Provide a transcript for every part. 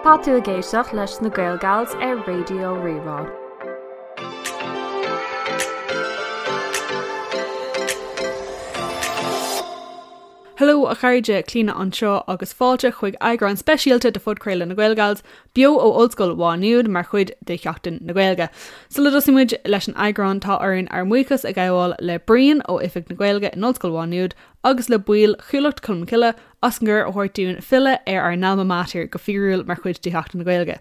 Tá tú ag éisteacht leis na Gaelgals ar Raidió Rí-Rá. Hello a chairde, Clíona anseo agus fáilte chuig eagrán speisialta de phodchraoladh na Gaelgals, beo ó Ollscoil Mhá Nuad mar chuid de Sheachtain na Gaeilge. Sula dtosaíonn muid leis an eagrán tá orainn ár mbuíochas a ghabháil le Brian ó Oifig na Gaeilge in Ollscoil Mhá Nuad agus le baill Chuallacht Cholmcille as an gcuireadh a thabhairt dúinn filleadh ar ár n-alma mater go fíorúil mar chuid de Sheachtain na Gaeilge.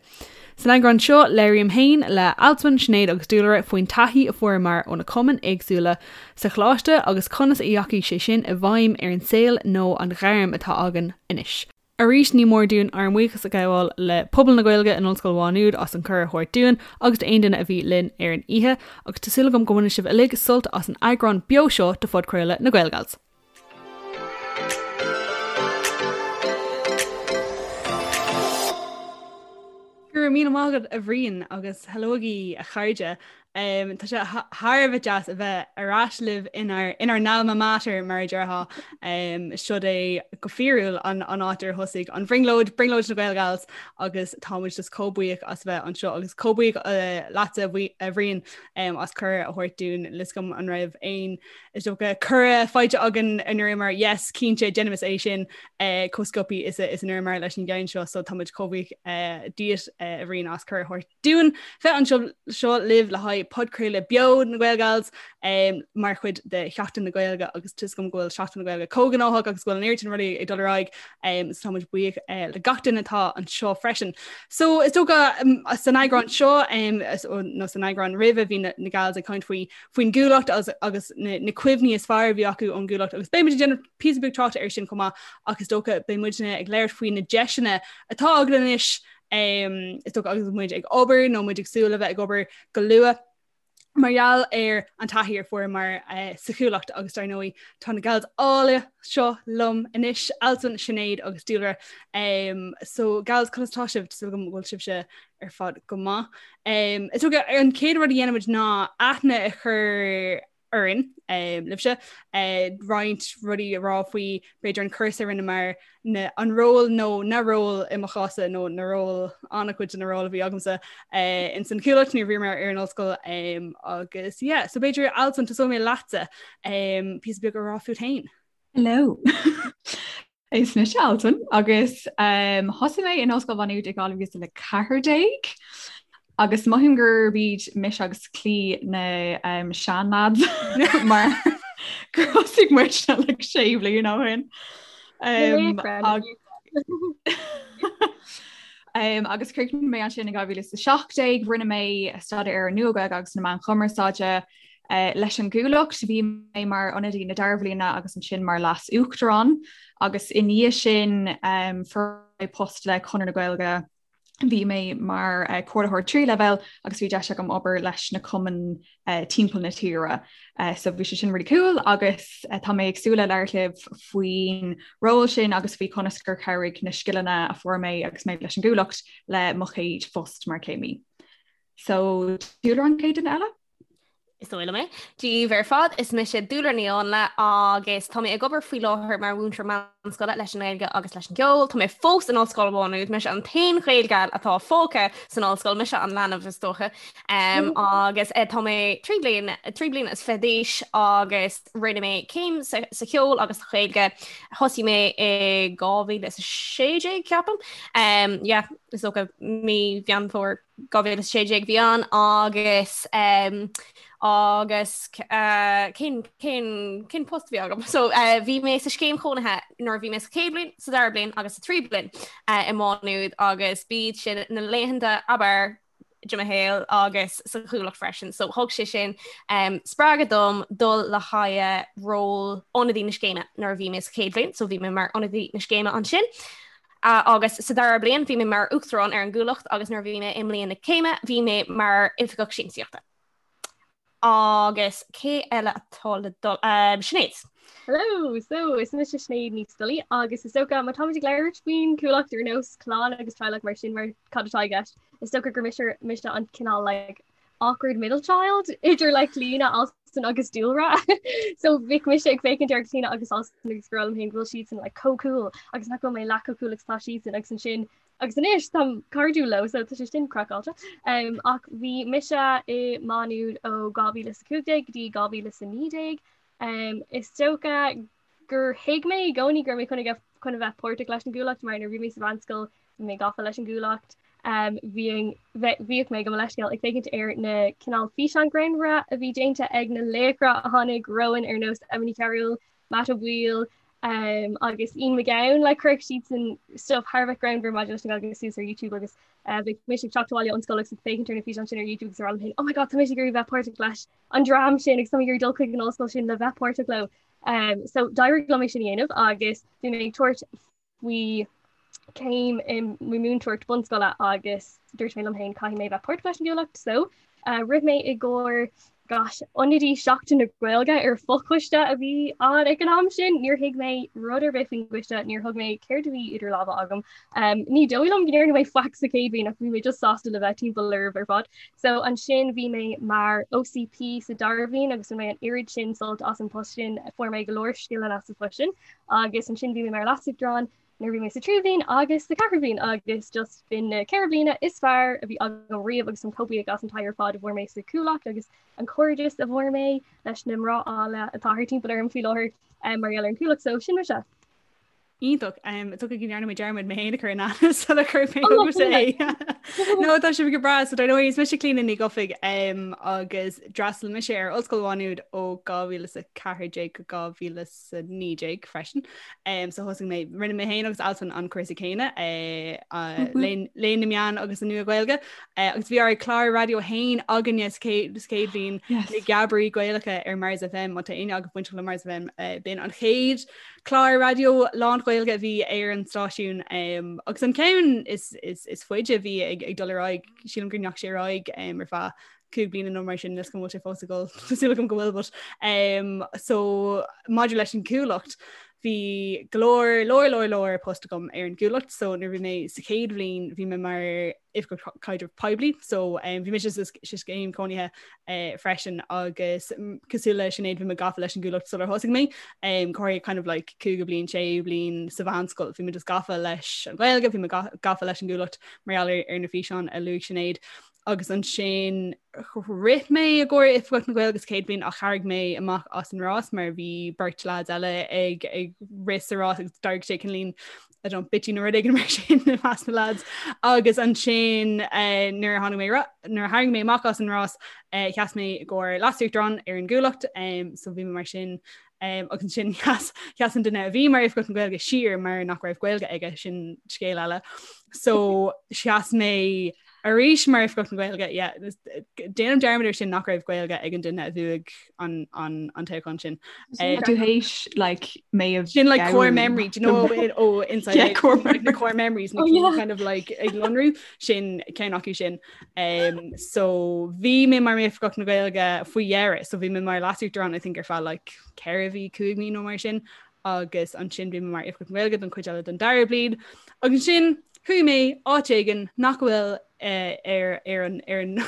San eagrán seo, labhraím féin le Alswyn, Sinéad agus Dúlra faoin taithí a fuaireamar ó na cumainn éagsúla sa choláiste agus conas a dheachaigh sé sin i bhfeidhm ar an saol nó an ghairm atá againn anois. Arís ní mór dúinn ár mbuíochas a ghabháil le pobal na Gaeilge in Ollscoil Mhá Nuad as an cuireadh a thabhairt dúinn agus d'aon duine a bhí linn ar an oíche agus tá súil agam go mbainfidh sibh uilig sult as an eagrán beo seo de phodchraoladh na Gaelgals. Go raibh míle maith agat a Bhriain agus hello agaibh a chairde. Um, tá sé thar a bheith deas a bheith ar ais libh inár inár n-alma mater mar a déarfá. Um, Siod é go fíorúil an, an áit ar thosaigh an bhrionglóid, brionglóid na Gaelgals agus tá muid just chomh buíoch as bheith anseo agus chomh buíoch uh, leatsa a Bhriain um, as cuireadh a thabhairt dúinn níl a fhios agam an raibh aon Is dócha cuireadh faighte againn a ndúramar yes cinnte déanaimis é sin eh, chomh sciobtha is a is a ndúramar leis an gceann seo so tá muid chomh buíoch eh, díot eh, a Bhriain as cuireadh a thabhairt dúinn bheith anseo seo libh le haghaidh podchraoladh beo na Gaelgals um, mar chuid de Sheachtain na Gaeilge agus tá a fhios agam go bhfuil Seachtain na Gaeilge chomh gnóthach agus go bhfuil an oiread sin rudaí ag dul ar aghaidh um, so tá muid buíoch uh, le gach duine atá anseo freisin. So is dócha um, san eagrán seo um, nó san eagrán roimhe bhí na, na gals ag caint faoi faoin gCuallacht agus na cuimhní is fearr a bhí acu ón gCuallacht agus beidh muid ag déanamh píosa beag tráchta air sin chomh maith ach is dócha beidh muidne ag labhairt faoi na deiseanna atá againn anois is dócha agus muid ag obair nó muid ag súil le bheith ag obair go luath mar gheall ar an taithí a fuaireamar eh, sa Chuallacht agus dar ndóigh tá na gals áille seo liom anois Alswyn, Sinéad agus Dúlra. Um, so gals conas tá sibh súil agam go bhfuil sibhse ar fad go maith. Um, is dócha an chéad rud a dhéanfaimid ná aithne a chur orainn um, libhse uh, roinnt rudaí a rá faoi b'fhéidir an cúrsa a rinneamar na, an ról nó na ról i mo chás-sa nó na ról an-chuid de na ról a bhí agamsa uh, in san Chuallacht nuair a bhíomar ar an ollscoil um, agus yeah, so b'fhéidir Alswyn tosóidh mé leatsa um, píosa beag a rá fút féin. Hello. Is mise Alswyn agus um, thosaigh mé in Ollscoil Mhá Nuad i 2014 agus mothaím gurb iad mise agus Clí na um, seanlads mar gur thosaigh muid like sé bliana ó shin. Um, um, agus chríochnaigh mé ansin in 2017, rinne mé staidéar ar an Nua-Ghaeilge agus na Meáin Chumarsáide Leis an gCuallacht, bhí mé mar ionadaí na dara bhliana agus ansin mar leas-uachtarán agus i ndiaidh sin fuair mé post le Conradh na Gaeilge. Bhí mé mar comhairlitheoir tríú leibhéal agus bhí deis agam obair leis na cumainn timpeall na tíre. So bhí sé sin really cool agus tá mé ag súil le labhairt libh faoin ról sin agus faoi conas gur chabhraigh na scileanna a fuair mé agus mé leis an gCuallacht le mo chéad phost mar chéimí. So Dúlra an chéad duine eile? Is dóigh liom é. Dia daoibh ar fad, is mise Dúlra Ní Áinle agus tá mé ag obair faoi láthair mar mhúinteoir meánscoile leis an nGaeilge agus leis an gceol. Tá mé fós in Ollscoil Mhá Nuad, mise an t-aon Ghaelgal atá fágtha san ollscoil, mise an leanbh is dócha. Um, agus eh, tá mé 3 bliain 3 bliana is 20 d'aois agus rinne mé céim sa, sa cheol agus sa Ghaeilge. Thosaigh mé i 2016 ceapaim. Um, yeah, is dócha mí Mheán Fómhair 2016 bhí ann agus um, agus uh, cén, cén, cén post bhí agam. So uh, bhí mé sa scéim chónaithe nuair bhí mé sa chéad bhliain, sa dara bliain agus sa tríú bliain uh, i Má Nuad agus b'iad sin na laethanta ab fhearr de mo shaol agus sa Chuallacht freisin. So thug sé sin um, spreagadh dom dul le haghaidh ról ionadaí na scéime nuair a bhí mé sa chéad bhliain, so bhí mé mar ionadaí na scéime ansin. Agus sa dara bliain bhí mé mar uachtarán ar an gCuallacht agus nuair a bhí mé i mbliain na céime bhí mé mar oifigeach siamsaíochta. Agus cé eile atá le dul? Um, Sinéad. Hello, so is mise Sinéad Ní Scolaí agus is dócha má táimid ag labhairt faoin Chuallacht ar nós clann agus teaghlach mar sin mar cad atá i gceist, is dócha gur mise mise an cineál like awkward middle child idir like Clíona. Alston agus Dúlra. So bhíodh mise ag féachaint ar Clíona agus Alston agus ag rá liom féin go bhfuil siadsan like chomh cool agus nach bhfuil mé leath chomh cool agus tá siadsan agus ansin agus anois táim cairdiúil leo so tá sé sin craiceáilte. Um, ach bhí mise i Má Nuad ó 2015 go dtí 2019. Um, is dócha gur thuig mé i gcónaí go raibh mé chun a chun a bheith páirteach leis an gCuallacht mar nuair a bhí mé sa mheánscoil bhí mé gafa leis an gCuallacht. Um, bhíodh mé gabh mo leithscéal ag féachaint ar na cineál físeán greannmhara a bhí déanta ag na laochra a tháinig romhainn ar nós Emma Ní Chearúil, Matt Ó Baoill um, agus Ian McGowan like chuirfeadh siadsan stuff thar a bheith greannmhar maidir leis an Ghaeilge suas ar YouTube agus uh, bhíodh mise ag teacht abhaile ón scoil agus ag féachaint ar na físeáin sin ar YouTube agus ag rá liom féin, oh my god, tá mise ag iarraidh bheith páirteach leis an dream sin agus tá mé ag iarraidh dul chuig an ollscoil sin le bheith páirteach leo. Um, so d'éirigh liom é sin a dhéanamh agus bhí mé ag tabhairt faoi céim i múinteoireacht bunscoile agus dúirt mé liom féin caithfidh mé bheith páirteach leis an gCuallacht so uh, rith mé i gcomhair gosh, ionadaí Seachtain na Gaeilge ar fochoiste a bhí ann ag an am sin, níor thuig mé rud ar bith faoin gcoiste, níor thuig mé céard a bhí idir lámha agam. Um, ní dóigh liom go ndearna mé faic sa chéad bhliain ach bhí mé just sásta le bheith timpeall oraibh ar fad. So ansin bhí mé mar OCP sa dara bhliain agus bhain mé an oiread sin sult as an post sin, fuair mé go leor scileanna as an phost sin agus ansin bhí mé mar leasuachtarán nuair bhí mé sa tríú bhliain agus sa ceathrú bhliain agus just b'in na ceithre bliana is fearr a bhí agam riamh agus táim chomh buíoch as an taithí ar fad a bhfuair mé sa Chuallacht agus an cairdeas a bhfuair mé leis na mná áille atá thart timpeall orm faoi láthair um, mar gheall ar an Chuallacht so sin mise. Iontach. Is dócha go ndearna mé dearmad mé féin a chur in aithne sula chuir mé chugatsa é. No tá sibh go breá so dar ndóigh is mise Clíona Ní Dhufaigh agus d'fhreastail mise ar Ollscoil Mhá Nuad ó 2014 go 2019 freisin. So thosaigh mé rinne mé féin agus Alswyn an cúrsa céanna eh, Léann na Meán agus an Nua-Ghaeilge eh, agus bhí ár clár raidió féin againne sa chéad bhliain na Geabairí Gaelacha ar Mars FM má tá éinne agaibh bainteach le Mars FM eh, b'in an chéad Clár raidió lán-Ghaeilge a bhí ar an stáisiún um, agus an ceann is, is, is faide a bhí ag, ag dul ar aghaidh sílim go ndeachaigh sé ar aghaidh um, ar feadh cúig bliana nó mar sin níl a fhios agam an bhfuil sé fós ag dul tá súil agam go bhfuil but um, so maidir leis an Chuallacht bhí go leor leor leor leor post agam ar an gCuallacht so nuair bhí mé sa chéad bhliain bhí mé mar oifigeach caidrimh poiblí so um, bhí mise sa scéim cónaithe uh, freisin agus cosúil le Sinéad bhí mé gafa leis an gCuallacht sular thosaigh mé um, corradh kind of like cúigiú bliain séú bliain sa mheánscoil bhí mé just gafa leis an Ghaeilge bhí mé gafa leis an gCuallacht mar gheall ar, ar na físeáin a luaigh Sinéad agus ansin rith mé i gcomhair Oifigeach na Gaeilge sa chéad bhliain ach tharraing mé amach as an rás mar bhí beirt lads eile ag ag rith sa rás agus d'éirigh sé cineáilín I don't bitchy nó rud éigin mar sin i measc na lads. Agus ansin eh, nuair a tháinig mé nuair a tharraing mé amach as an rás eh, sheas mé i gcomhair leasuachtarán ar an gCuallacht um, so bhí mé mar sin um, agus ansin sheas sheas an duine a bhí mar Oifigeach na Gaeilge siar mar nach raibh Gaeilge aige sin scéal eile. So sheas mé arís mar Oifigeach na Gaeilge yeah, déanaim dearmad ar sin nach raibh Gaeilge ag an duine a bhuaigh an, an, an toghchán sin. Um, tú théis like mé sin like core memory do you know it oh inside yeah, core like, the core memories na oh, yeah. kind of like ag lonrú sin ceann acu sin um, so bhí mé mar Oifigeach na Gaeilge faoi dheireadh so bhí mé mar leasuachtarán I think ar feadh like 4 mhí 5 mí nó mar sin agus ansin bhí mé mar Oifigeach na Gaeilge don chuid eile den dara bliain. Agus ansin chuaigh mé áit éigin nach bhfuil eh, ar ar an ar an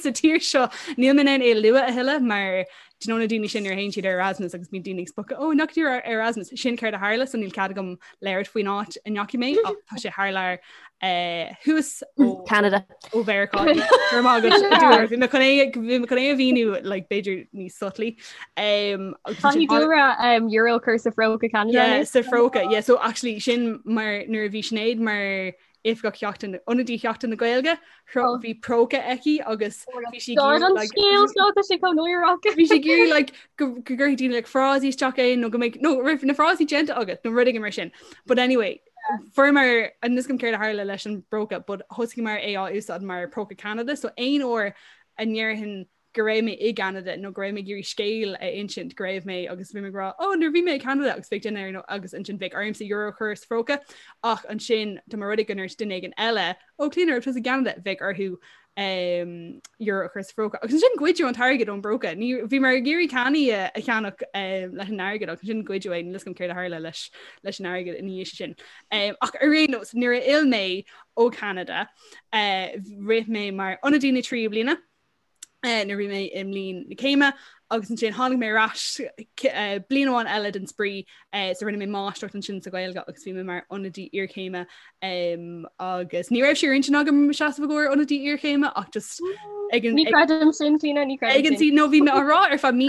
sa tír seo níl mé in ann é a lua a thuilleadh mar do you know na daoine sin nuair a théann siad ar Erasmus agus bíonn daoine ag spochadh ó nach ar Erasmus sin céard a tharla so níl cead agam labhairt faoin áit a ndeachaigh mé ach tá sé thar lear eh, thuas ó Canada. ó Mheiriceá Go raibh maith agat, Bhí mé chun é bhí mé chun é a mhíniú like, b'fhéidir níos subtly. Um, agus ansin Caithfidh Dúlra um, euro a chur sa phróca Canada. Yeah, sa phróca. Yeah, so actually sin mar nuair a bhí Sinéad mar oifigeach Sheachtain ionadaí Sheachtain na Gaeilge Oh. bhí próca aici agus bhí sí ag God, iarraidh, an like, scéal seo tá sé chomh náireach. bhí sí ag iarraidh like, go go gcuirfidh daoine like, frásaí isteach é nó go mbeidh nó raibh na frásaí déanta agat nó rud éigin mar sin. But anyway, fuaireamar níl a fhios agam céard a tharla leis an bpróca, but thosaíomar é á úsáid mar próca Canada, so aon uair a ndéarfainn go raibh mé i gCanada nó go raibh mé ag iarraidh scéal a insint go raibh mé agus bhí mé ag rá ó nuair bhí mé i Canada agus bheadh duine ar agus ansin bheadh ormsa euro a chur sa phróca ach ansin dá mba rud é go ndúirt duine éigin eile ó Clíona raibh tusa i gCanada bheadh orthu um, euro a chur sa phróca. Agus ansin goideadh an t-airgead ón bpróca. Ní bhíomar ag iarraidh cannaí a, a cheannach um, leis an airgead agus ansin goideadh é níl a fhios agam céard a tharla leis leis an airgead ina dhiaidh sin. Um, ach ar aon nós nuair a fhill mé ó Canada uh, rith mé mar ionadaí na tríú bliana uh, nuair bhí mé i mbliain na céime. Agus ansin tháinig mé ar ais bliain amháin eile den spraoi so rinne mé máistreacht ansin sa Ghaeilge agus bhí mé mar ionadaí iarchéime agus ní raibh sé ar intinn agam seasamh i gcomhair ionadaí iarchéime ach just ag an Ní creidim sin Clíona, ní creidim ag an sin. No bhí mé á rá ar feadh mí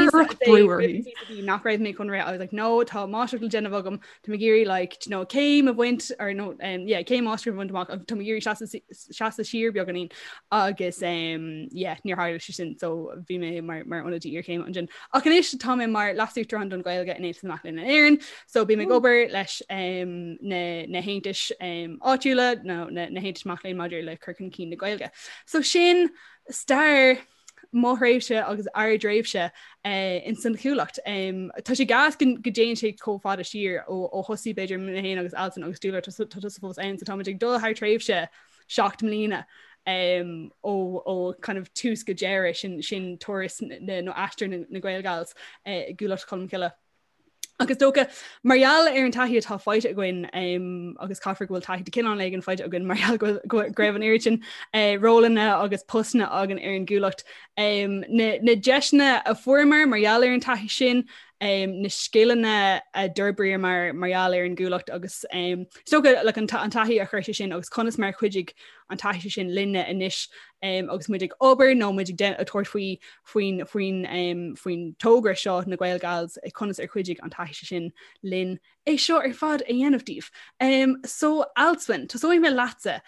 nach raibh mé chun rith I was like no tá máistreacht le déanamh agam Tá mé ag iarraidh like you know céim a bhaint or no um, yeah, céim máistreacht a bhaint amach agus tá mé ag iarraidh seasamh seasamh siar beagáinín agus um, yeah, níor tharla sé sin so bhí mé mar, mar ionadaí iarchéime ansin. Ach anois tá mé mar leasuachtarán don Ghaeilge in Aontas na Mac Léinn in Éirinn, so bím ag obair leis um, na, na haontais um, áitiúla nó na, na haontais mac léinn maidir le cur chun cinn na Gaeilge. So sin stair mo thréimhse agus ár dtréimhse ins an Chuallacht. Tá sé gas go dtéann sé chomh fada siar ó thosaigh b'fhéidir mé féin agus Alswyn agus Dúlra tá tusa fós ann so táimid ag dul thar tréimhse 7 mbliana ó kind of tús go deireadh sin sin turas nó aistear na Gaelgals i gCuallacht Cholmcille. Agus dócha, mar gheall ar an taithí atá faighte againn, agus caithfear go bhfuil taithí de chineál éigin faighte againn mar gheall go raibh an oiread sin rólanna agus postanna againn ar an gCuallacht, na deiseanna a fuaireamar mar gheall ar an taithí sin, na scileanna a d'fhorbraíomar mar gheall ar an gCuallacht agus is dócha like, an taithí a chuir sé sin agus conas mar a chuidigh an taithí sin linne anois agus muid ag obair nó muid ag tabhairt faoi faoin faoin faoin togra seo na Gaelgals conas ar chuidigh an taithí sin linn é seo ar fad a dhéanamh daoibh. Um, so Alswyn, tosóidh mé leatsa.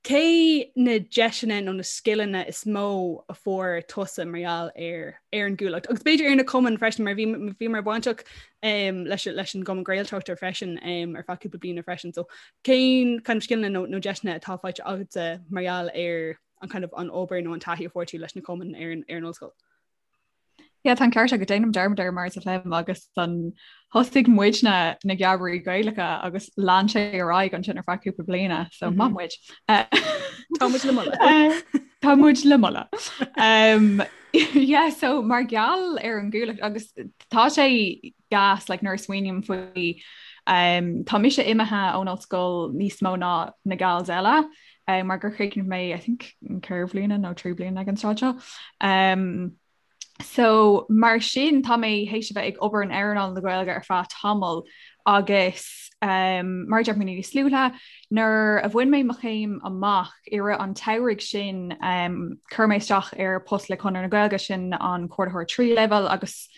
Cé na deiseanna nó na scileanna is mó a fuair tusa mar gheall ar ar an gCuallacht? Agus b'fhéidir ar na cumainn freisin mar bhí bhíomar bainteach um, leis, leis an gCumann Gaeltachta freisin um, ar feadh cúpla bliana freisin. So Cén kind of scileanna nó, nó deiseanna atá faighte agatsa mar gheall ar an kind of an obair nó an taithí a fuair tú leis na cumainn ar an, ar an ollscoil? Yeah, tá an ceart agat déanaim dearmad air mar is léim agus an thosaigh muidne na Geamairí Gaelacha agus lean sé ar aghaidh ansin ar feadh cúpla bliana, so mm -hmm. maith muid. Tá muid le moladh. Eh, tá muid le moladh. Um, yeah, so mar gheall ar an gCuallacht agus tá sé gas like nuair a smaoiním faoi um, tá mise imithe ón ollscoil níos mó ná na gals eile um, mar gur chríochnaigh mé I think 4 bliana nó 3 bliana ag an tráth seo. Um, so mar sin tá mé théis a bheith ag obair in earnáil na Gaeilge ar feadh tamall agus um, mar deir mé níos luaithe nuair a bhain mé mo chéim amach i rith an tsamhraidh sin um, chuir mé isteach ar post le Conradh na Gaeilge sin an comhordaitheoir tríú leibhéal agus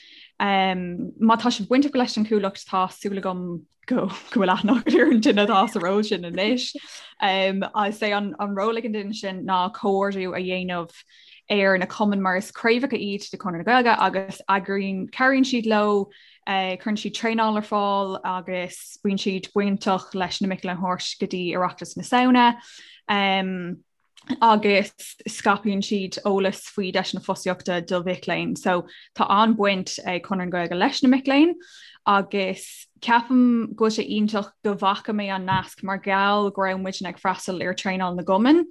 Um, má tá sibh bainteach leis an Chuallacht tá súil agam go go bhfuil aithne agat ar an duine atá sa ról sin anois. Um, is é an, an ról ag an duine sin ná comhordú a dhéanamh ar na cumainn mar is craobhacha iad de Chonradh na Gaeilge agus eagraíonn cabhraíonn siad leo, uh, cuireann siad traenáil ar fáil agus bíonn siad bainteach leis na mic léinn a thabhairt go dtí Oireachtas na Samhna. Um, agus scaipeann siad eolas faoi deiseanna fostaíochta do mhic léinn. So tá an-bhaint ag Conradh na Gaeilge leis na mic léinn agus ceapaim go bhfuil sé iontach go bhfaca mé an nasc mar gheall go raibh muidne ag freastal ar traenáil na gcumann.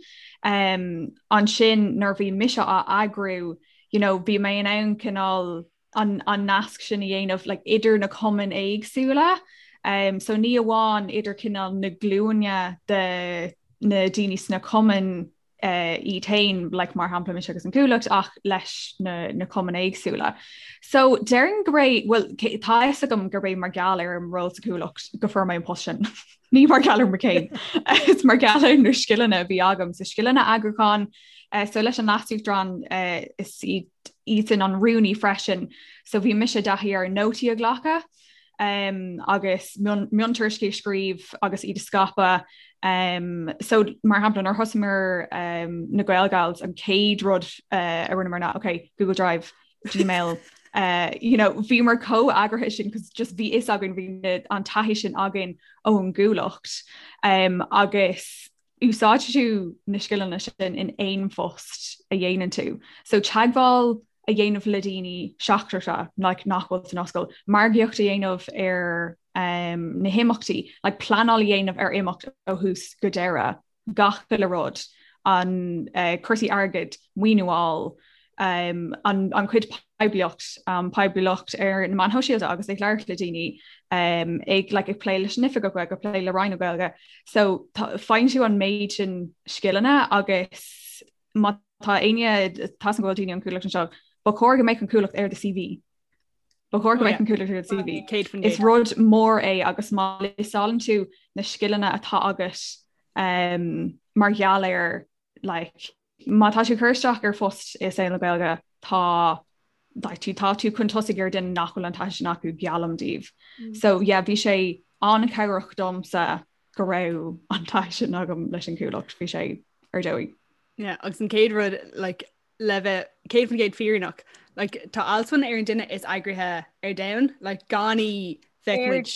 Um, ansin nuair bhí mise á eagrú, you know, bhí mé in ann cineál an, an nasc sin a dhéanamh like, idir na cumainn éagsúla. Um, so ní amháin idir cineál na glúine de na daoine sna cumainn uh, iad féin like, mar shampla mise agus an Cuallacht ach leis na, na cumainn éagsúla. So déarfainn gurb é well, tá fhios agam gurb é mar gheall ar an ról sa Chuallacht go fuair mé an post sin. Ní mar gheall ar mo chéim. Is mar gheall ar na scileanna a bhí agam so scileanna eagrúcháin, uh, so leis an leasuachtarán uh, is iad iadsan an rúnaí freisin so bhí mise i dtaithí ar nótaí a ghlacadh um, agus miontuairiscí a scríobh agus iad a scaipeadh. Um, so mar shampla nuair thosaíomar um, na Gaelgals an chéad rud uh, a rinneamar ná okay, Google Drive, Gmail, uh, you know, bhíomar chomh heagraithe sin cos just bhí fhios againn bhí an taithí sin againn ón gCuallacht um, agus úsáideann tú na scileanna sin in aon phost a dhéanann tú. So teagmháil a dhéanamh le daoine seachtracha like, nach bhfuil san ollscoil, margaíocht a dhéanamh ar um, na himeachtaí, like, pleanáil a dhéanamh ar imeacht ó thús go deireadh, gach uile rud, an uh, cúrsaí airgid, maoiniú a fháil, um, an, an chuid poiblíocht, um, poiblíocht ar na meáin shóisialta agus ag labhairt le daoine um, ag, like, ag plé leis an Oifigeach Gaeilge, ag plé le Roinn na Gaeilge. So faigheann tú an méid sin scileanna agus má tá éinne tá go bhfuil daoine ón Chuallacht anseo, ba chóir go mbeadh an Cuallacht ar do CV. Ba chóir go mbeadh an Chuallacht ar do CV. Is rud mór é agus má liostálann tú na scileanna atá agat um, mar gheall ar like, má tá tú ag cur isteach ar phost i saol na Gaeilge tá like, tú tá tú chun tosaigh ar duine nach bhfuil an taithí sin acu geallaim daoibh. Mm. So yeah, bhí sé an-chabhrach domsa go raibh an taithí sin agam leis an Chuallacht, bhí sé ar dóigh. Yeah, agus an chéad rud like, le bheith 100% fírinneach, like, tá Alswyn ar an duine is eagraithe ar domhan, like, gan í bheadh muid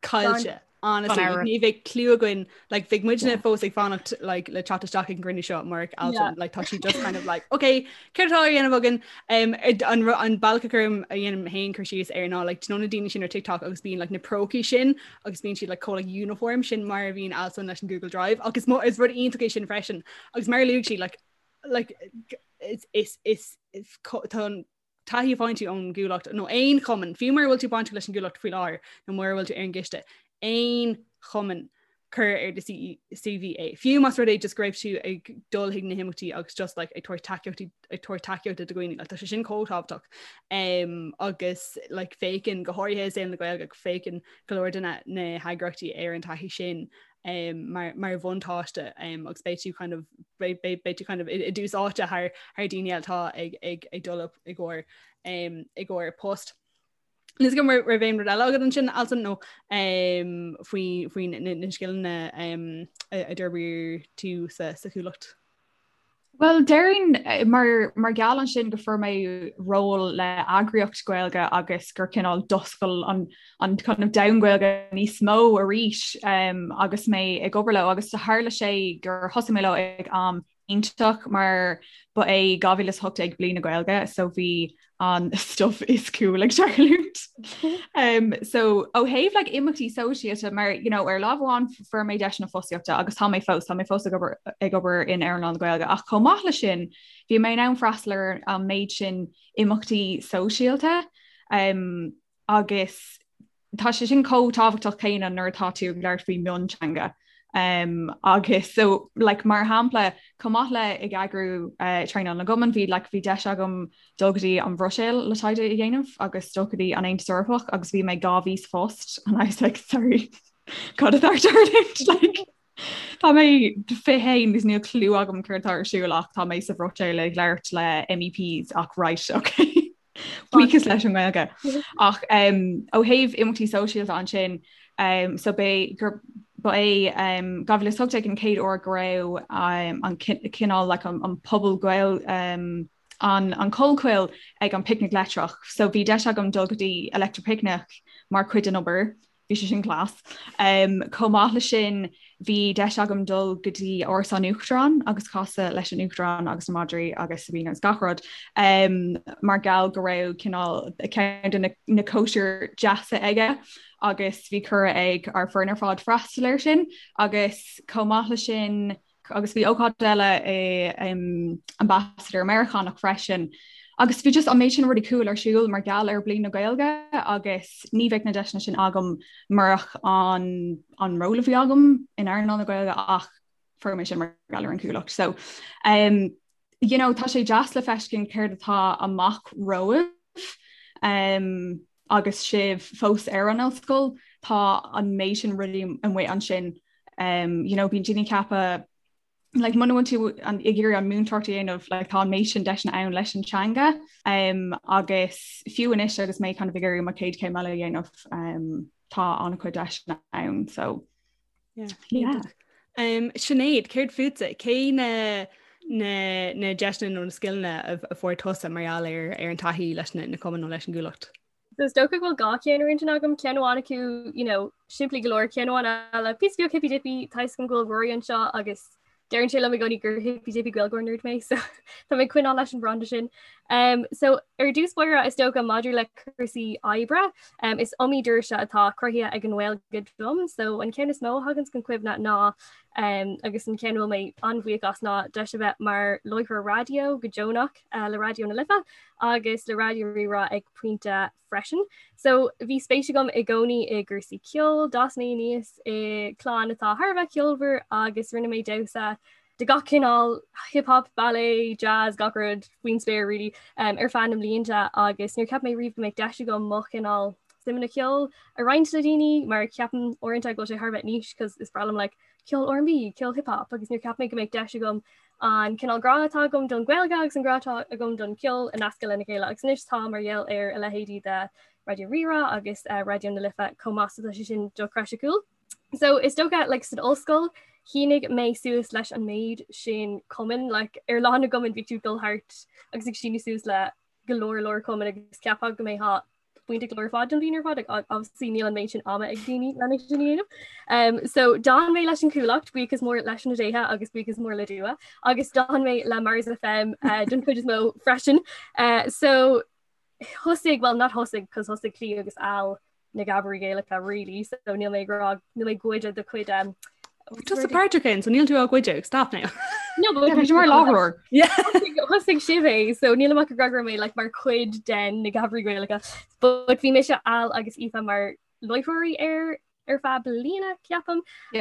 caillte. Honestly, like, ní bheadh clue againn, like, bheadh muidne fós ag fanacht like, le teacht isteach ag an gcruinniú seo murach Alswyn, like, tá sí just kind of like, okay, céard atá á dhéanamh againn? Um, an, an bealach a chuirim a dhéanaim féin cur síos air ná like, do you know na daoine sin ar TikTok agus bíonn like, na prócaí sin agus bíonn siad like, chomh like, uniform sin mar a bhíonn Alswyn leis an Google Drive agus mo, is rud iontach é sin freisin agus mar a luaigh sí like, like, is, is, is, is, tá an taithí a fhaigheann tú ón gCuallacht nó aon chumann, fiú mura bhfuil tú bainteach leis an gCuallacht faoi láthair nó mura bhfuil tú ar an gcoiste, aon chumann cuir ar do CV é. Fiú más rud é just go raibh tú ag dul chuig na himeachtaí agus just like, ag tabhairt tacaíochtaí ag tabhairt tacaíochta do dhaoine, like, tá sé sin chomh tábhachtach. Um, agus like, féachann go háirithe i saol na Gaeilge féachann go leor de na, na heagraíochtaí ar an taithí sin um, mar, mar bhuntáiste um, agus beidh tú kind of, beidh, beidh, beidh tú kind of i, i dtús áite thar, thar daoine eile atá ag, ag, ag dul i gcomhair um, i gcomhair post. Níl a fhios agam an raibh aon rud eile agat ansin Alswyn nó um, faoi, faoi na, na scileanna um, a, a d'fhorbair tú sa, sa Chuallacht? Bhuel, déarfainn mar mar gheall ansin go fuair mé ról le eagraíocht Gaeilge agus gur cineál d'oscail an an kind of domhan Gaeilge níos mó arís um, agus mé ag obair leo agus tharla sé gur thosaigh mé leo ag am iontach mar ba é 2018 bliain na Gaeilge so bhí an stuff is cool ag tarlúint. Um, so ó thaobh like, imeachtaí sóisialta mar you know, ar lámh amháin fuair mé deiseanna fostaíochta agus tá mé fós tá mé fós ag obair ag obair in earnáil na Gaeilge ach chomh maith leis sin bhí mé in ann freastal ar an méid sin imeachtaí sóisialta um, agus tá sé sin chomh tábhachtach céanna nuair atá tú ag labhairt faoi mionteanga. Um, agus so like, mar shampla chomh maith le ag eagrú uh, traenáil na gcumann bhí like, bhí deis agam dul go dtí an Bhruiséil le taighde a dhéanamh agus dul go dtí an Aontas Eorpach agus bhí mé 2 mhí sa phost and I was like sorry cad atá ag tarlúint like Tá mé 21 agus níl clue agam céard atá ar siúl ach tá mé sa Bhruiséil ag labhairt le MEPs ach right okay. Buíochas leis an nGaeilge. Ach um, ó thaobh imeachtaí sóisialta ansin um, so b'é gur ba é um, 2018 an chéad uair go raibh um, an cineál like, an, an pobal Gael um, an, an Collchoill ag an Picnic Leictreach. So bhí deis agam dul go dtí Electric Picnic mar chuid den obair. Bhí sé sin class. Um, chomh maith le sin bhí deis agam dul go dtí Áras an Uachtaráin agus casadh leis an Uachtarán agus na madraí agus Sabina agus gach rud um, mar gheall go raibh cineál ceann de na, na cóisir deasa aige agus bhí cuireadh ag ár foireann ar fad freastal air sin agus chomh maith le sin agus bhí ócáid eile i um, Ambassador Meiriceánach freisin. Agus bhí just an méid sin rudaí cool ar siúl mar gheall ar Bliain na Gaeilge agus ní bheadh na deiseanna sin agam murach an, an ról a bhí agam in earnáil na Gaeilge ach fuair mé sin mar gheall ar an Chuallacht. So um, you know, tá sé deas le feiscint céard atá amach romhaibh um, agus sibh fós ar an ollscoil, tá an méid sin rudaí amuigh ansin um, you know, bíonn daoine ag ceapadh like, muna bhfuil tú an, ag iarraidh an múinteoireacht a dhéanamh like, tá an méid sin deiseanna ann leis an teanga um, agus fiú anois agus mé kind of ag iarraidh mo chéad chéim eile a dhéanamh um, tá an-chuid deiseanna ann so yeah. Yeah. Um, Sinéad, céard fútsa? Cé na na, na deiseanna nó na scileanna a, a fuair tusa mar gheall ar, ar an taithí leis na, na cumainn nó leis an gCuallacht? So is dócha go bhfuil dhá cheann ar intinn agam, ceann amháin acu, you know, simplí go leor, ceann amháin eile, píosa beag hippy dippy, tá a fhios agam go bhfuil Rory anseo agus deireann sé liom i gcónaí gur hippy dippy Gaeilgeoir nerd mé, so tá mé ag coinneáil leis an branda sin. Um, so ar dtús báire is dócha maidir le cúrsaí oibre, um, is iomaí doirse atá cruthaithe ag an nGaeilge dom, so an ceann is mó a thagann chun cuimhne ná um, agus an ceann a bhfuil mé an-bhuíoch as ná deis a bheith mar láithreoir raidió go deonach uh, le Raidió na Life agus le Raidió Rí-Rá ag pointe freisin. So bhí spéis agam i gcónaí i gcúrsaí ceoil, d'fhás mé aníos i gclann atá thar a bheith ceolmhar agus rinne mé damhsa. de gach cineál, hip hop, ballet, jazz, gach rud faoin spéir really, um, ar feadh na mblianta agus níor cheap mé riamh go mbeadh deis agam mo chineál suimeanna ceoil a roinnt le daoine mar ceapaim uaireanta go bhfuil sé thar a bheith niche cos is breá liom like, ceol R&B, ceol hip hop agus níor cheap mé go mbeadh deis agam an cineál grá atá agam don Ghaeilge agus an grá atá agam don cheol a nascadh lena chéile agus anois tá mar gheall ar a leithéidí de Raidió Rí-Rá agus uh, Raidió na Life chomh maith so tá sé sin dochreidte cool. So is dócha like, san ollscoil shínigh mé suas leis an méid sin cumann like, ar lá na gcumann bhí tú dul thart agus ag síniú suas le go leor leor cumann agus cheapfá go mbeifeá bainteach leo ar fad don bhliain ar fad obviously níl an méid sin ama ag daoine lena sin a dhéanamh. Um, so d'fhan mé leis an Chuallacht buíochas mór leis na déithe agus buíochas mór le Dua agus d'fhan mé le Mars FM uh, don chuid is mó freisin. Uh, so thosaigh well not thosaigh cos thosaigh Clí agus Al na Gabairí Gaelacha really so níl mé ag rá níl mé ag goid do chuid um, Tusa páirteach ann, so níl tú á ghoid stop now. No, but Bhí mar láithreoir. Yeah. Thosaigh sibh é, so níl mé ag rá go raibh mé like, mar chuid den na Gabairí Gaelacha. But bhí mise Al agus Aoife mar láithreoirí ar ar feadh bliana ceapaim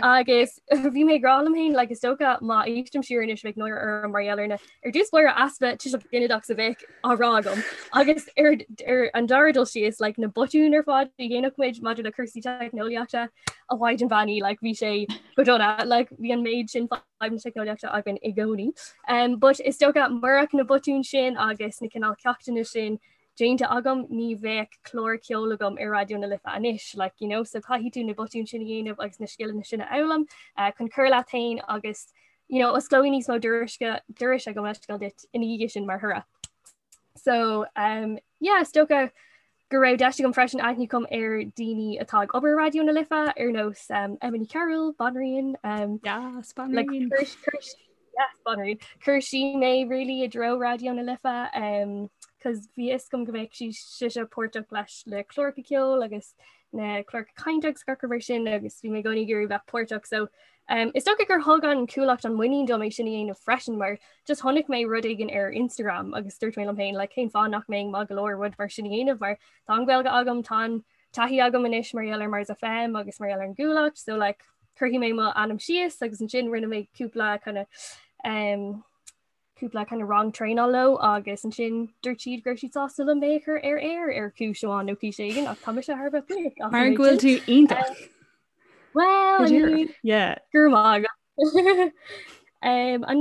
agus bhí mé ag rá liom féin like, is dócha má éistim siar anois bheadh náire orm mar gheall ar na ar dtús báire easpa tuiseal ginideach a bheadh á rá agam agus ar, ar an dara dul síos like, na botúin ar fad a dhéanadh muid maidir le cúrsaí teicneolaíochta a mhaighdean bheannaithe like, bhí sé go dona like, bhí an méid sin fadhb na teicneolaíochta againn i gcónaí. Um, but is dócha murach na botúin sin agus na cineál ceachtanna sin déanta agam ní bheadh clár ceoil agam ar Raidió na Life anois like, you know, so caithfidh tú na botúin sin a dhéanamh agus na scileanna sin a fhoghlaim uh, chun cur leat féin agus you know, osclóidh níos mó dorais gabh mo leithscéal duit ina dhiaidh sin mar thoradh. So um, yeah, is dócha go raibh deis agam freisin aithne a chur ar daoine atá ag obair Raidió na Life ar nós um, Emma Ní Chearúil, Banríon, um, yes, Banríon. Like, Yes, Banríon. Chuir sí mé really i dtreo Raidió na Life um, cos bhí fhios agam go mbeadh sí sise páirteach leis le cláracha ceoil agus na cláracha cainte agus gach rud mar sin agus bhí mé i gcónaí ag iarraidh bheith páirteach so um, is dócha gur thug an Cuallacht an muinín dom é sin a dhéanamh freisin mar just chonaic mé rud éigin ar Instagram agus dúirt mé liom féin like, cén fáth nach mbeinn maith go leor rud mar sin a dhéanamh mar tá an Ghaeilge agam tá an taithí agam anois mar gheall ar Mars FM agus mar gheall ar an gCuallacht so like cuirfidh mé mo ainm síos agus ansin rinne mé cúpla kind of um, cúpla kind of rang traenála leo agus ansin dúirt siad go raibh siad sásta liom mé a chur ar aer ar chúis amháin nó cúis éigin ach tá mise thar a bheith buíoch as Mar go bhfuil tú iontach. Well, I mean, Yeah. go raibh maith agat. Um, an,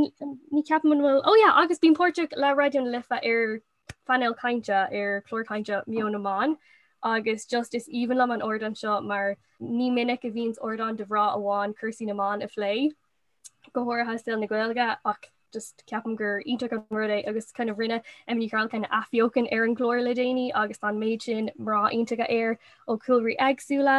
ní ceapaim an bhfuil oh yeah, agus bím páirteach le Raidió na Life ar phainéal cainte ar chlár cainte Meon na mBan agus just is aoibhinn liom an ardán seo mar ní minic a bhíonns ardán do mhná amháin cúrsaí na mban a phlé go háirithe saol na Gaeilge ach just ceapaim gur iontach an rud é agus kind of rinne Emma Ní Chearúil kind of athbheochan ar an gclár le déanaí agus tá an méid sin mná iontacha air ó chúlraí éagsúla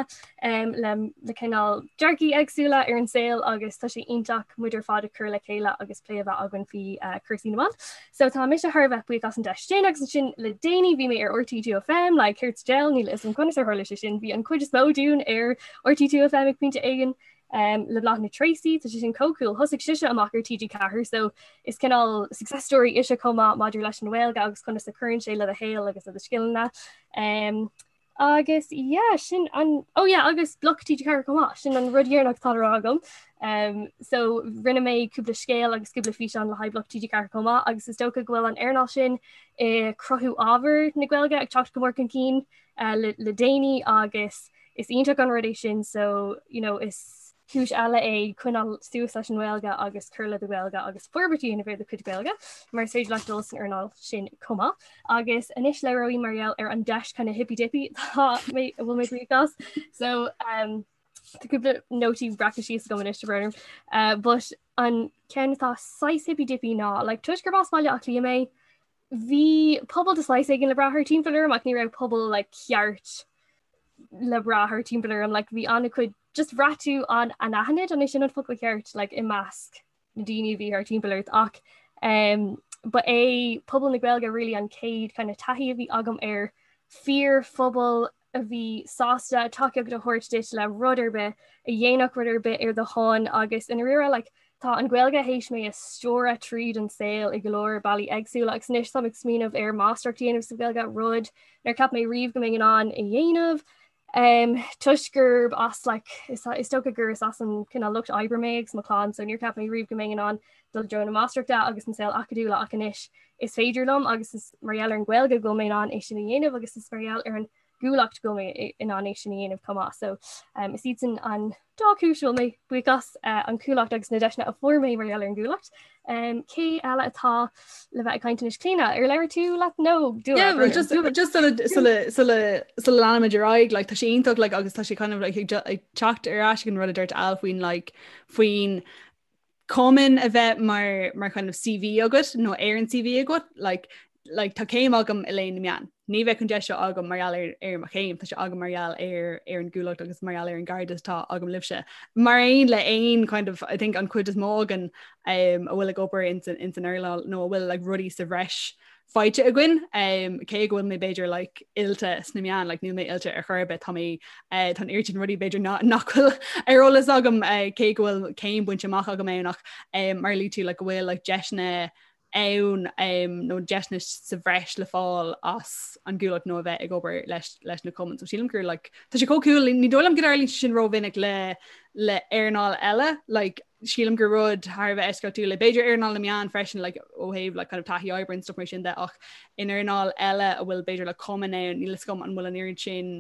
um, le, le cineál dearcaí éagsúla ar an saol agus tá sé iontach muid ar fad a chur le chéile agus plé a bheith againn faoi uh, cúrsaí na mban. So tá mise thar a bheith buíoch as an deis sin agus ansin le déanaí bhí mé ar RTÉ 2FM le céard sa diabhal níl a fhios agam conas ar tharla sé sin bhí an chuid is mó dúinn ar RTÉ 2FM ag pointe éigin um, le Bláthnaid Treacy, tá sé sin chomh cool thosaigh sise amach ar TG4 so is cineál success story ise chomh maith maidir leis an Ghaeilge agus conas a chuireann sé le do shaol agus le do scileanna. Um, agus yeah, sin an oh yeah, agus Bloc TG4 chomh maith sin an rud deireanach atá le rá agam. Um, so rinne mé cúpla scéal agus cúpla físeán le haghaidh Bloc TG4 chomh maith agus is dócha go bhfuil an earnáil sin i cruthú ábhar na Gaeilge ag teacht go mór chun cinn uh, le, le déanaí agus is iontach an rud é sin so you know, is cúis eile é coinneáil suas leis an nGaeilge agus cur le do Ghaeilge agus forbairt a dhéanamh ar do chuid Gaeilge mar is féidir leat dul san earnáil sin chomh maith. Agus anois labhróidh mar gheall ar an deis kind of hippy dippy tá mé a bhfuil mé buíoch as. So um, tá cúpla nótaí breactha síos agam anois tá brón orm. Uh, but an ceann atá saghas hippy dippy ná like, toisc gurb as Baile Átha Cliath mé, bhí pobal de shaghas éigin le brath thart timpeall orm ach ní raibh pobal like, ceart le brath thart timpeall orm like, bhí an-chuid just bhraith tú an anaithnid an é sin an focal ceart like, i measc na daoine a bhí thart timpeall ort ach um, ba é pobal na Gaeilge really an chéad kind of taithí a bhí agam ar fíorphobal a bhí sásta tacaíocht a thabhairt duit le rud ar bith, a dhéanfadh rud ar bith ar do shon agus i ndáiríre like, tá an Ghaeilge théis mé a stiúradh tríd an saol i go leor bealaí éagsúla agus anois táim ag smaoineamh ar máistreacht a dhéanamh sa Ghaeilge, rud nár cheap mé riamh go mbeinn in ann a dhéanamh. Um, toisc gurb as like, is, is dócha gur is as an cineál lucht oibre mé agus mo chlann, so níor cheap mé riamh go mbeinn in ann dul i dtreo na máistreachta agus an saol acadúla ach anois is féidir liom agus is mar gheall ar an Ghaeilge go bhfuil mé in ann é sin a dhéanamh agus is mar gheall ar an gCuallacht go bhfuil mé in ann é sin a dhéanamh chomh maith. So um, is iad sin an dá chúis a bhfuil mé buíoch as uh, an Chuallacht agus na deiseanna a fuair mé mar gheall ar an gCuallacht. Um, cé eile atá le bheith ag caint anois Clíona ar labhair tú leat nó Yeah, well, just just sula sula sula sula leanaimid ar aghaidh like, tá sé iontach like, agus tá sé kind of like, ag ag teacht ar ais ag an rud a dúirt Al faoin like, faoin cumann a bheith mar mar kind of CV agat nó ar an CV agat like, like, tá céim agam i léann na meán. Ní bheadh an deis seo agam mar gheall ar ar mo chéim, tá sé agam mar gheall ar ar an gCuallacht agus mar gheall ar an gcairdeas atá agam libhse. Mar aon le aon kind of I think an chuid is mó againn um, a bhfuil ag obair ins an ins an earnáil nó a bhfuil like, rudaí sa bhreis faighte againn um, cé go bhfuil mé b'fhéidir like, oilte sna meáin like, níl mé oilte ar chor ar bith tá mé uh, tá an oiread sin rudaí b'fhéidir nach bhfuil ar eolas agam uh, cé go bhfuil céim bainte amach agam ann ach um, mar a luaigh tú like, go bhfuil like, deiseanna ann um, nó deiseanna sa bhreis le fáil as an gCuallacht nó a bheith ag obair leis, leis na cumainn. So sílim gur like, tá sé chomh cool ní dóigh liom go dtarlaíonn sé sin rómhinic le le earnáil eile like, sílim gur rud thar a bheith eisceachtúil é b'fhéidir earnáil na meán freisin like, ó thaobh like, kind of taithí oibre and stuff mar sin de ach in earnáil eile a bhfuil b'fhéidir le cumann ann níl a fhios agam an bhfuil an oiread sin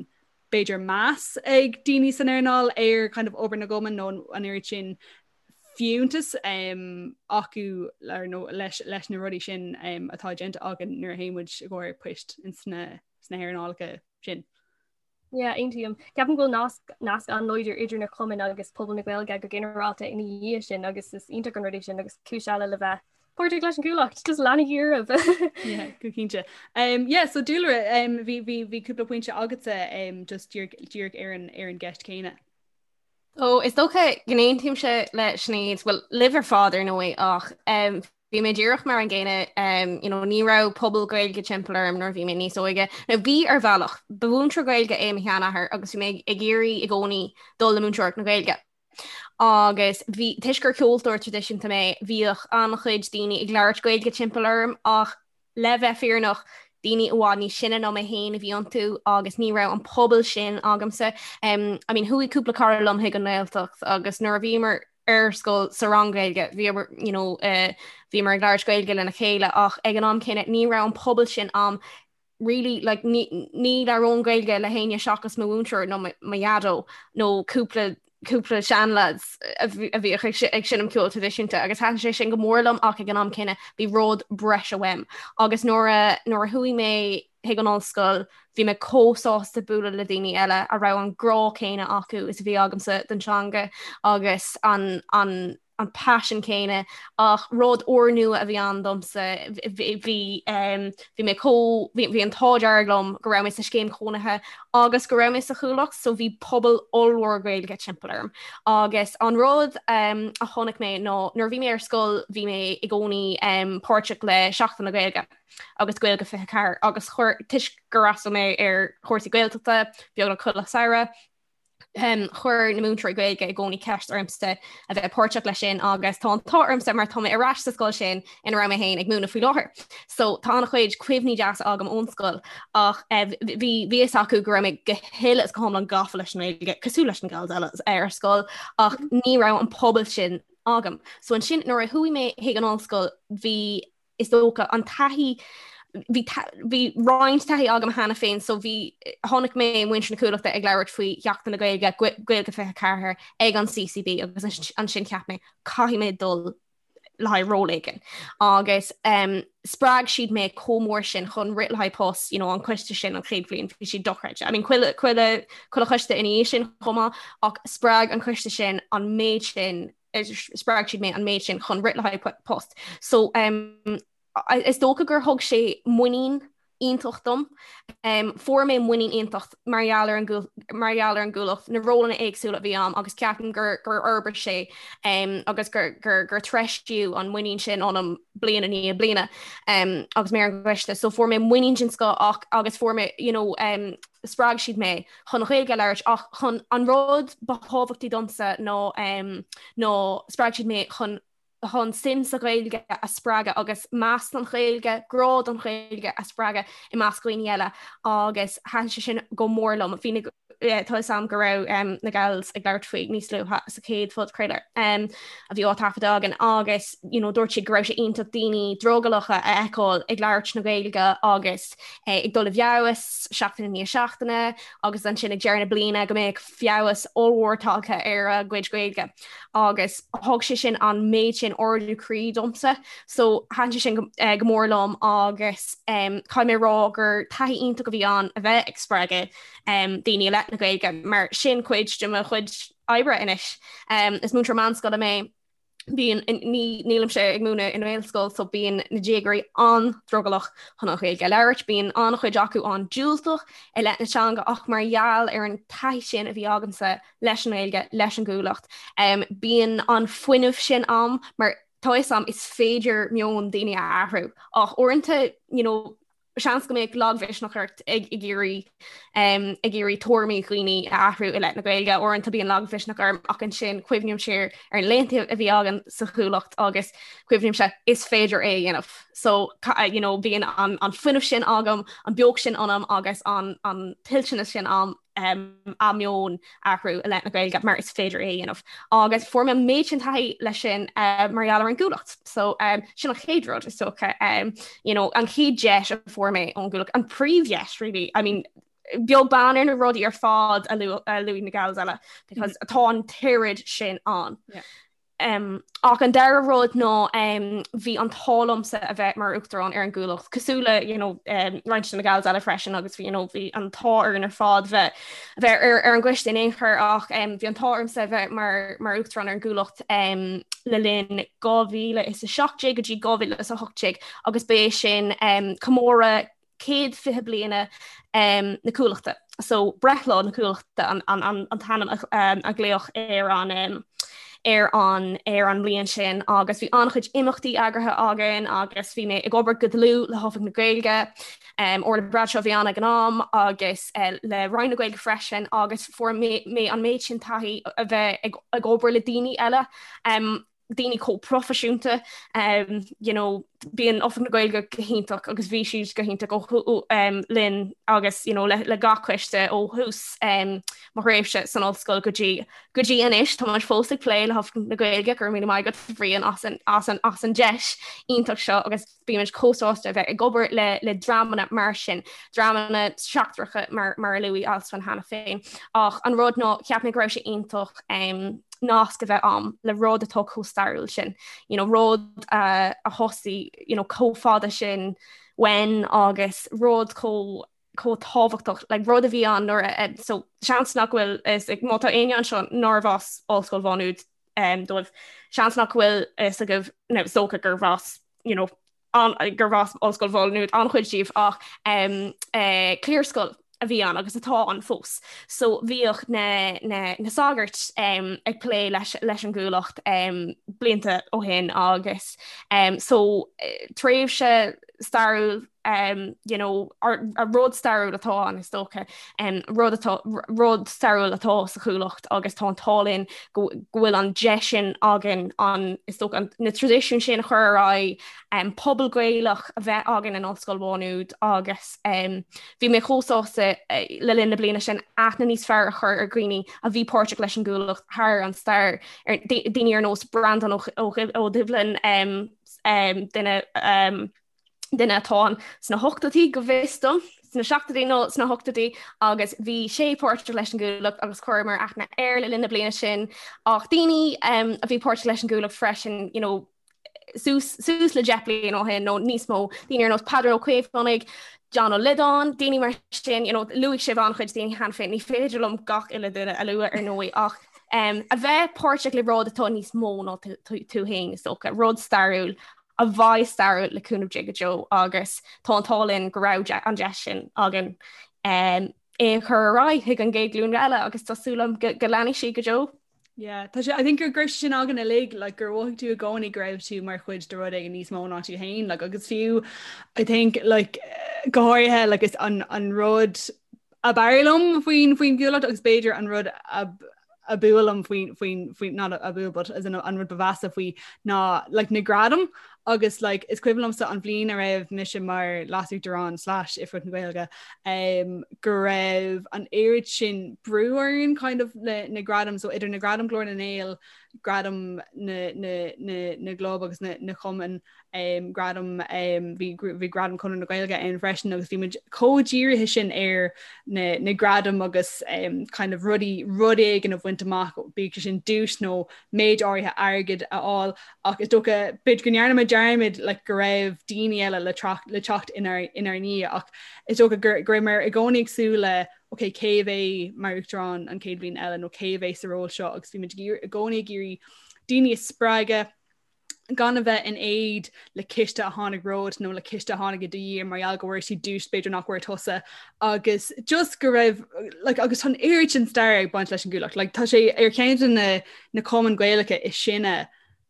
b'fhéidir meas ag daoine san earnáil ar kind of obair na gcumann nó an oiread sin fiúntas um, acu nó leis, leis na rudaí sin um, atá déanta againn nuair a théann muid i gcomhair poist in sna, sna hearnálacha sin. Yeah, aontaím. Ceapaim go bhfuil nasc nasc an-láidir idir na cumainn agus pobal na Gaeilge go ginearálta ina dhiaidh sin agus is iontach an rud é sin agus cúis eile le bheith páirteach leis an gCuallacht, just leanaigí oraibh. Yeah, go cinnte. Um, yeah, so Dúlra, um, bhí bhí bhí cúpla pointe agatsa um, just díreach díreach ar an ar an gceist céanna. Ó, is dócha go n-aontaímse le Sinéad, bhuel, libh ar fad ar ndóigh ach um, Bhí mé díreach mar an gcéanna, you know, ní raibh pobal Gaeilge timpeall orm nuair a bhí mé níos óige. Nó bhí ar bhealach, ba mhúinteoir Gaeilge é mo sheanathair agus bhí mé ag iarraidh i gcónaí dul le múinteoireacht na Gaeilge. Agus bhí, toisc gur ceoltóir traidisiúnta mé, bhíodh an-chuid daoine ag labhairt Gaeilge timpeall orm ach le bheith fírinneach, daoine i bhfad níos sine ná mé féin a bhí iontu agus ní raibh an pobal sin agamsa. I mean, chuaigh cúpla cara liom chuig an nGaeltacht agus nuair a bhíomar ar scoil sa rang Gaeilge, bhíomar, you know, eh, bhíomar ag labhairt Gaeilge lena chéile ach ag an am céanna ní raibh an pobal sin a'm really like ní ní labhróinn Gaeilge le héinne seachas mo mhúinteoir nó mo dhaideo nó cúpla cúpla seanlads a bhíodh ag seinm ceol traidisiúnta agus thaitin sé sin go mór liom ach ag an am céanna bhí rud breise uaim agus nuair a nuair a chuaigh mé chuig an ollscoil bhí mé chomh sásta bualadh le daoine eile a raibh an grá céanna acu is a bhí agamsa don teanga agus an an an paisean céanna ach rud úrnua a bhí ann domsa bhí bhí mé chomh bhí an t-ádh dearg liom go raibh mé sa scéim chónaithe agus go raibh mé sa Chuallacht so bhí pobal ollmhór Gaeilge timpeall orm agus an rud a chonaic mé ná nuair a bhí mé ar scoil bhí mé i gcónaí páirteach le Seachtain na Gaeilge agus Gaeilge 24 agus chuir toisc gur fhreastail mé ar chúrsaí Gaeltachta beagnach chuile samhradh um, chuir na múinteoirí Gaeilge i gcónaí ceist ormsa a bheith páirteach leis sin agus tá an t-ádh ormsa mar tá mé ar ais sa scoil sin ina raibh mé féin ag múineadh faoi láthair. So tá an-chuid cuimhní deasa agam ón scoil ach eh, bhí bhí fhios acu go raibh mé go huile is go hiomlán gafa leis an nGaeilge cosúil leis na gals eile ar scoil ach ní raibh an pobal sin agam. So ansin nuair a chuaigh mé chuig an ollscoil bhí is dócha, an taithí, bhí bhí roinnt taithí agam cheana féin so bhí chonaic mé muintir na Cuallachta ag labhairt faoi Sheachtain na Gaeilge, Gaeilge 24 ag an CCB agus ansin cheap mé caithfidh mé dul le haghaidh ról éigin. Agus um, spreag siad mé chomh mór sin chun rith le haghaidh post, you know, an coiste sin an chéad bhliain bhí siad dochreidte. I mean, chuile chuile chuile choiste ina dhiaidh sin chomh maith ach spreag an coiste sin an méid sin spreag siad mé an méid sin chun rith le haghaidh post. So um, is dócha gur thug sé muinín iontach dom. Um, fuair mé muinín iontach mar gheall ar an mar gheall ar an gCuallacht, na rólanna éagsúla a bhí a'm agus ceapaim gur gur fhorbair sé um, agus gur, gur, gur treisíodh an muinín sin ionam bliain i ndiaidh bliana um, agus mé ar an gcoiste. So fuair mé muinín den scoth ach agus fuair mé you know, um, spreag siad mé chun an Ghaeilge a labhairt ach chun an rud ba thábhachtaí domsa ná ná spreag siad mé chun chun suim sa Ghaeilge a spreagadh agus meas don Ghaeilge, grá don Ghaeilge a spreagadh i measc dhaoine eile agus thaitin sé sin go mór liom. Bhí na. Tá fhios a'm go raibh na gals ag labhairt faoi níos luaithe sa chéad phodchraoladh a bhí á taifeadadh againn agus you know, dúirt siad go raibh sé iontach daoine drogallacha a fheiceáil ag labhairt na Gaeilge agus ag dul i bhfeabhas seachtain i ndiaidh seachtaine agus ansin ag deireadh na bliana go mbeadh feabhas ollmhór tagtha ar a gcuid Gaeilge agus thug sé sin an méid sin ardú croí domsa so thaitin sé sin go, eh, go mór liom agus um, caithfidh mé rá gur taithí iontach a bhí ann a bheith ag spreagadh um, daoine i leith na Gaeilge mar sin cuid de mo chuid oibre anois. Um, is múinteoir meánscoile mé bíonn nílimse ag múineadh i nGaelscoil so bíonn na déagóirí an-drogallach chun an Ghaeilge a labhairt, bíonn an-chuid acu an-diúltach i leith na teanga ach mar gheall ar an taithí sin a bhí agamsa leis an nGaeilge, leis an gCuallacht, um, bíonn an fuinneamh sin a'm mar tá fhios a'm is féidir meon daoine a athrú ach uaireanta you know, seans go mbeadh lagmhisneach ort ag iarraidh ag iarraidh tuairimí dhaoine a athrú i leith na Gaeilge. Uaireanta bíonn lagmhisneach orm ach ansin cuimhním siar ar na laethanta a bhí againn sa Chuallacht agus cuimhnímse is féidir é a dhéanamh. So you know, bíonn an, an fuinneamh sin agam, an beocht sin ionam agus an, an toilteanas sin a'm um, a meon a athrú i leith na Gaeilge mar is féidir é a dhéanamh. Agus fuair mé an méid sin taithí leis sin uh, mar gheall ar an gCuallacht. So um, sin an chéad rud is dócha um, you know, an chéad deis a fuair mé ón gCuallacht, an príomhdheis really. I mean, beag beann ar na rudaí ar fad a luaigh na gals eile because mm -hmm. tá an t-oiread sin ann. Yeah. Ach an dara rud ná bhí an t-ádh liomsa a bheith mar uachtarán ar an gCuallacht, cosúil le you know, roinnt de na gals eile freisin agus bhí you know, bhí an t-ádh orainn ar fad bheith bheith ar, ar an gcoiste in aon chor ach um, bhí an t-ádh ormsa a bheith mar, mar uachtarán ar an gCuallacht um, le linn 2017 go dtí 2018 agus ba é sin um, comóradh 120 bliana na Cuallachta. So breithlá na Cuallachta an, an, an, an t-ainm a, a glaodh ar an ar an ar an mbliain sin agus bhí an-chuid imeachtaí eagraithe againn agus bhí mé ag obair go dlúth le hOifig na Gaeilge um, Orla Bradshaw a bhí ann ag an am agus uh, le Roinn na Gaeilge freisin agus fuair mé, mé an méid sin taithí a bheith ag, ag obair le daoine eile um, daoine chomh proifisiúnta um, you know, bíonn Oifig na Gaeilge go hiontach agus bhí siad go hiontach ó um, linn agus you know, le, le gach coiste ó thús um, mo thréimhse san ollscoil go dtí go dtí anois tá muid fós ag plé le hOifig na Gaeilge go raibh míle maith agat Bhriain as an, as an, as an deis iontach seo agus bímid chomh sásta a bheith ag obair le, le dreamanna mar sin, dreamanna seachtracha mar, mar a luaigh Alswyn cheana féin. Ach an rud ná cheap mé go raibh sé iontach um, nasc a bheith a'm le rud atá chomh stairiúil sin. You know, rud uh, a thosaigh you know, chomh fada sin uainn agus rud chomh chomh tábhachtach like, rud a bhí ann nuair a so seans nach bhfuil is ag má tá éinne anseo nárbh as Ollscoil Mhá Nuad um, dóibh seans nach bhfuil fhios agaibh nó is dócha gurbh as you know, an, gurbh as Ollscoil Mhá Nuad an-chuid díobh ach um, uh, cliarscoil a bhí ann agus atá ann fós. So bhíodh na, na, na sagairt um, ag plé leis, leis an gCuallacht um, blianta ó shin agus um, so eh, tréimhse stairiúil um, you know, a rud stairiúil atá ann is dócha um, rud atá rud stairiúil atá sa Chuallacht agus tá an t-ádh linn go bhfuil an deis sin againn an is dócha an, na traidisiúin sin a chur ar aghaidh um, pobal Gaelach a bheith againn in Ollscoil Mhá Nuad agus um, bhí mé chomh sásta uh, le linn na bliana sin aithne níos fearr a chur ar dhaoine a bhí páirteach leis an gCuallacht thar an stair ar daoine ar nós Breandán Ó, Ó, Ó Doibhlin um, um, duine um, duine atá ann sna hochtóidí go bhfios dom, sna seachtóidí nó sna hochtóidí agus bhí sé páirteach leis an gCuallacht agus chuireamar aithne air le linn na bliana sin ach daoine um, a bhí páirteach leis an gCuallacht freisin you know, suas, suas le 10 bliain ó shin nó níos mó, daoine ar nós Peadar Ó Caomhánaigh, John Ó Loideáin, daoine mar sin, you know, luaigh sibh an-chuid daoine cheana féin, ní féidir liom gach uile duine a lua ar ndóigh ach um, a bheith páirteach le rud atá níos mó ná tú féin is dócha, rud stairiúil a bheidh stairiúil le cúnamh Dé go deo agus tá an t-ádh linn go raibh an deis sin againn um, é a chur ar aghaidh chuig an gcéad ghlúin eile agus tá súil agam go, go leanfaidh sí go deo. Yeah, tá sé I think gur go raibh sin againn uilig like, gur mhothaigh tú i gcónaí go raibh tú mar chuid de rud éigin níos mó ná tú féin like, agus fiú I think like, go háirithe like, is an, an rud ab fhearr liom faoin faoin gCuallacht agus b'fhéidir an rud ab ab fhuath liom faoin faoin faoin not ab fhuath but as in an rud ba mheasa faoi ná like na gradaim. Agus like is cuimhin liomsa an bhliain a raibh mise mar leasuachtarán slash Oifigeach na Gaeilge um, go raibh an oiread sin brú orainn kind of le na gradaim so idir na gradaim Glór na nGael, gradaim na, na, na, na gclub agus na, na cumann um, gradam um, bhí bhí gradam Conradh na Gaeilge ann freisin agus bhí muid chomh dírithe sin ar na, na gradaim agus um, kind of rudaí rud éigin a bhaint amach bíodh sé sin duais nó méid áirithe airgid a fháil ach is dócha b'fhéidir go ndearna muid dearmad like, go raibh daoine eile le, le teacht inár, inár ndiaidh ach is dócha go, go raibh muid i gcónaí ag súil le ok cé a bheidh mar uachtarán an chéad bhliain eile nó cé a bheidh sa ról seo agus bhí muid i gcónaí ag iarraidh daoine a spreagadh gan a bheith in éad le ciste a tháinig romhat nó le ciste a tháinig i do dhiaidh mar gheall go bhfuair siad duais b'fhéidir nach bhfuair tusa agus just go raibh like, agus tá an oiread sin stair ag baint leis an gCuallacht. Like, tá sé ar cheann de na, na cumainn Gaelacha is sine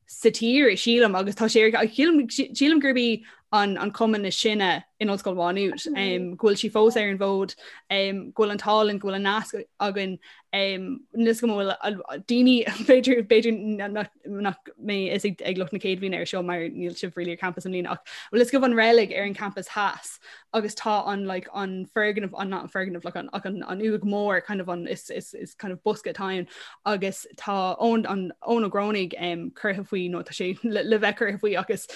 sa tír sílim agus tá sé ar sílim, sílim gurb í an, an cumann is sine in Ollscoil Mhá Nuad um, go bhfuil sí fós ar an bhfód um, go bhfuil an t-ádh linn go bhfuil an nasc againn Níl a fhios agam an bhfuil daoine b'fhéidir b'fhéidir nach mbeidh fhios ag lucht na céad bhliana ar seo mar níl sibh really ar campus i mbliana ach bhfuil fhios agaibh an reilig ar an campus theas agus tá an like an foirgneamh an not an foirgneamh like an ach an an uaigh mór kind of an is is is kind of bosca atá ann agus tá Eoin an Eoin Ó Grónaigh um, curtha faoi nó tá sé le, le bheith curtha faoi agus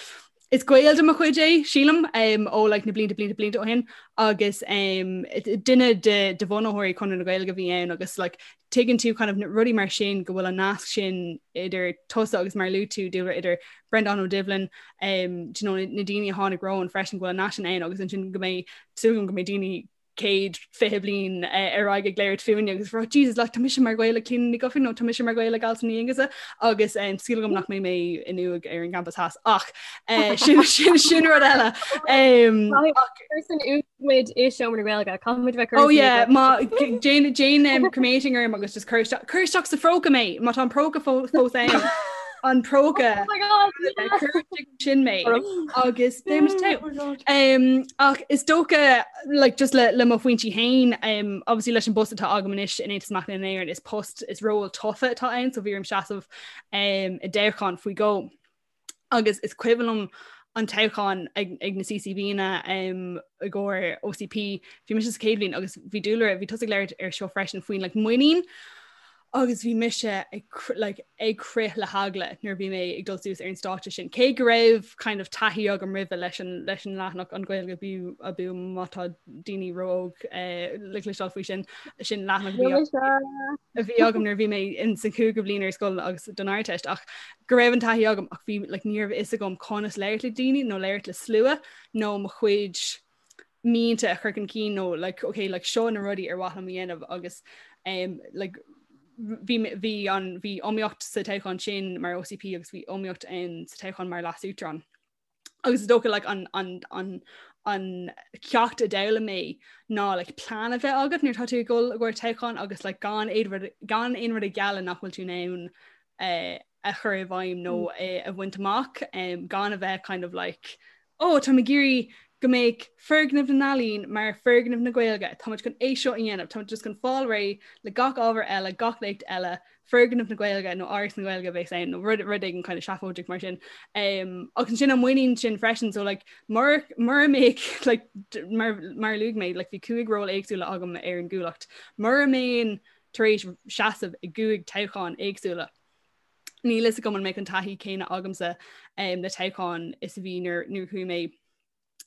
Is gaol de mo chuid é, sílim, ó like na blianta blianta blianta ó shin agus um, duine de, de bhunaitheoirí Conradh na Gaeilge a bhí ann agus like, tuigeann tú kind of rudaí mar sin go bhfuil an nasc sin idir tusa agus mar a luaigh tú Dúlra idir Breandán Ó Doibhlin um, do you know, na daoine a tháinig romhainn freisin go bhfuil an nasc sin ann agus ansin go mbeidh súil agam go mbeidh daoine 120 bliain ar aghaidh ag labhairt fúinne agus rá Jesus like tá mise mar ghaol le Clíona Ní Dhufaigh nó tá mise mar ghaol le Alison Ní Aonghusa agus um, súil agam nach mbeidh mé in uaigh ar an gcampas theas ach uh, sin, sin, sin rud eile. Um, san muid i seomra na Gaeilge caithfimid bheith Oh yeah má déan déan um, cremating orm agus just cuir isteach cuir isteach sa phróca mé má tá an próca fós ann an próca Oh my God, yeah. cuir sin mé agus beimid togha. Um, ach is dócha like, just le, le mo phointí féin um, obviously leis an bpost atá agam anois in Aontas Mac Léinn na hÉireann is post is ról tofa atá ann so bhí orm seasamh um, i dtoghchán faoi dhó. Agus is cuimhin liom an toghchán ag, ag na CCBanna um, i gcomhair OCP, bhí mise sa chéad bhliain agus bhí Dúlra, bhí tusa ag labhairt ar seo freisin faoin like, muinín agus bhí mise ag like, ag crith le heagla nuair a bhí mé ag dul suas ar an stáitse sin. Cé go raibh kind of taithí agam roimhe leis an, leis an leathanach an Ghaeilge abú abú má tá daoine ró-óg eh, le cloisteáil faoi sin sin leathanach a bhí agam nuair a bhí mé in san cúigiú bliain ar scoil agus don Ardteist ach go raibh an taithí agam ach bhí like, ní raibh fhios agam conas labhairt le daoine nó labhairt le slua nó mo chuid mianta a chur chun cinn nó like okay like seo na rudaí ar mhaith liom a dhéanamh agus um, like bhí bhí an bhí iomaíocht sa toghchán sin mar OCP agus bhí iomaíocht ann sa toghchán mar leasuachtarán. Agus is dócha like an an an an ceacht a d'fhoghlaim mé ná like plean a bheith agat nuair atá tú ag dul i gcomhair toghchán agus like gan aon rud gan aon rud a ghealladh nach bhfuil tú in ann eh, a chur i bhfeidhm nó mm. eh, a bhaint amach um, gan a bheith kind of like oh tá ag iarraidh go mbeidh foirgneamh na n-ealaíon mar foirgneamh na Gaeilge Táimid chun é seo a dhéanamh Táimid just chun fáil réidh le gach ábhar eile gach léacht eile foirgneamh na Gaeilge nó Áras na Gaeilge bheas ann nó rud rud éigin kind of seafóideach mar sin. Um, agus sin an muinín sin freisin so like mura mura mbeadh like mar mar a luaigh mé like bhí cúig ról éagsúla agam ar an gCuallacht. Mura mbeinn tar éis seasamh i gcúig toghchán éagsúla. Níl fhios agam an mbeadh an taithí céanna agamsa um, le toghchán is a bhí nuair nuair chuaigh mé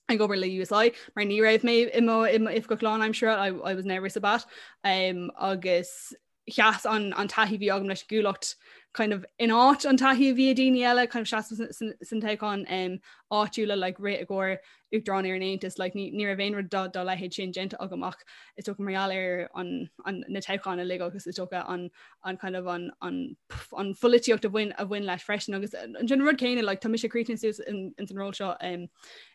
ag obair le USI mar ní raibh mé i mo i mo oifigeach lánaimseartha I, I was never Sabat um, agus sheas an, an taithí bhí agam leis an gCuallacht kind of in áit an taithí a bhí ag daoine eile kind of seasamh san, san toghchán um, áitiúla like, rith i gcomhair Uachtarán ar an Aontas, like, ní, ní raibh aon rud dá, dá leithéid sin déanta agam ach is dócha mar gheall ar an, an, na toghcháin uilig agus is dócha an, an kind of an, an, an pholaitíocht a bhain, a bhain leis freisin agus an rud céanna like, tá mise críochnaithe suas in, in san ról seo um,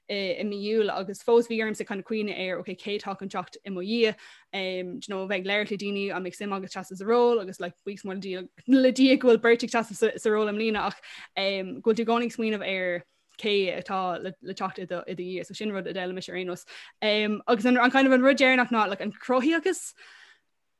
i, i mí Iúil agus fós bhí ormsa kind of cuimhneamh ar okay, cé atá chun teacht i mo dhiaidh um, do you know, bheith ag labhairt le daoine an mbeadh suim agat seasamh sa ról agus like, buíochas mór le Dia, le Dia go bhfuil beirt ag seasamh sa, sa ról i mbliana ach um, go bhfuil tú i gcónaí ag smaoineamh ar cé atá le, le teacht i do, i do dhiaidh, so sin rud a d'fhoghlaim mise ar aon nós. Um, agus an, an kind of an rud deireanach ná like, an cruthaitheachas,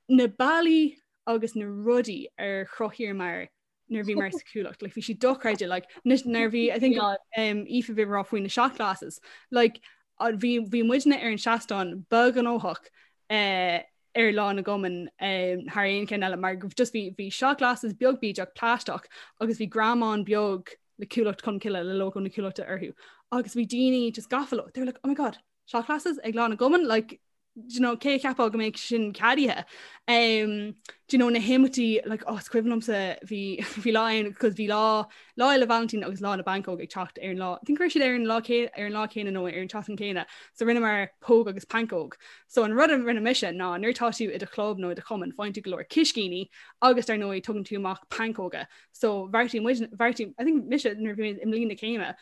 na bealaí agus na rudaí ar chruthaíomar. nuair a bhíomar sa Chuallacht like bhí sí dochreidte like nuair bhí I think um, Aoife bhí rá faoi na shot glasses like bhí bhí muidne ar an seastán ba ghnóthach uh, ar lá na gcumann um, thar aon cheann eile mar just bhí bhí shot glasses beag bídeach plaisteach agus bhí greamán beag le Cuallacht Cholmcille le logo na Cuallachta orthu agus bhí daoine just gafa leo they were like oh my god shot glasses ag lá na gcumann like do you know, cé a cheapfadh go mbeadh sin ceadaithe. Um, do you know, na himeachtaí like, oh, is cuimhin liomsa bhí bhí lá ann cos bhí lá lá Fhéile Vailintín agus lá na bpancóg ag teacht ar an lá. I think raibh siad ar an lá ar an lá céanna nó ar an tseachtain céanna. So rinneamar póg agus pancóg. So an rud a rinne mise ná nuair atá tú i do chlub nó i do chumann faigheann tú go leor ciscíní agus dar ndóigh tugann tú amach pancóga. So bheartaigh muid bheartaigh I think mise nuair bhí mé i mbliain na céime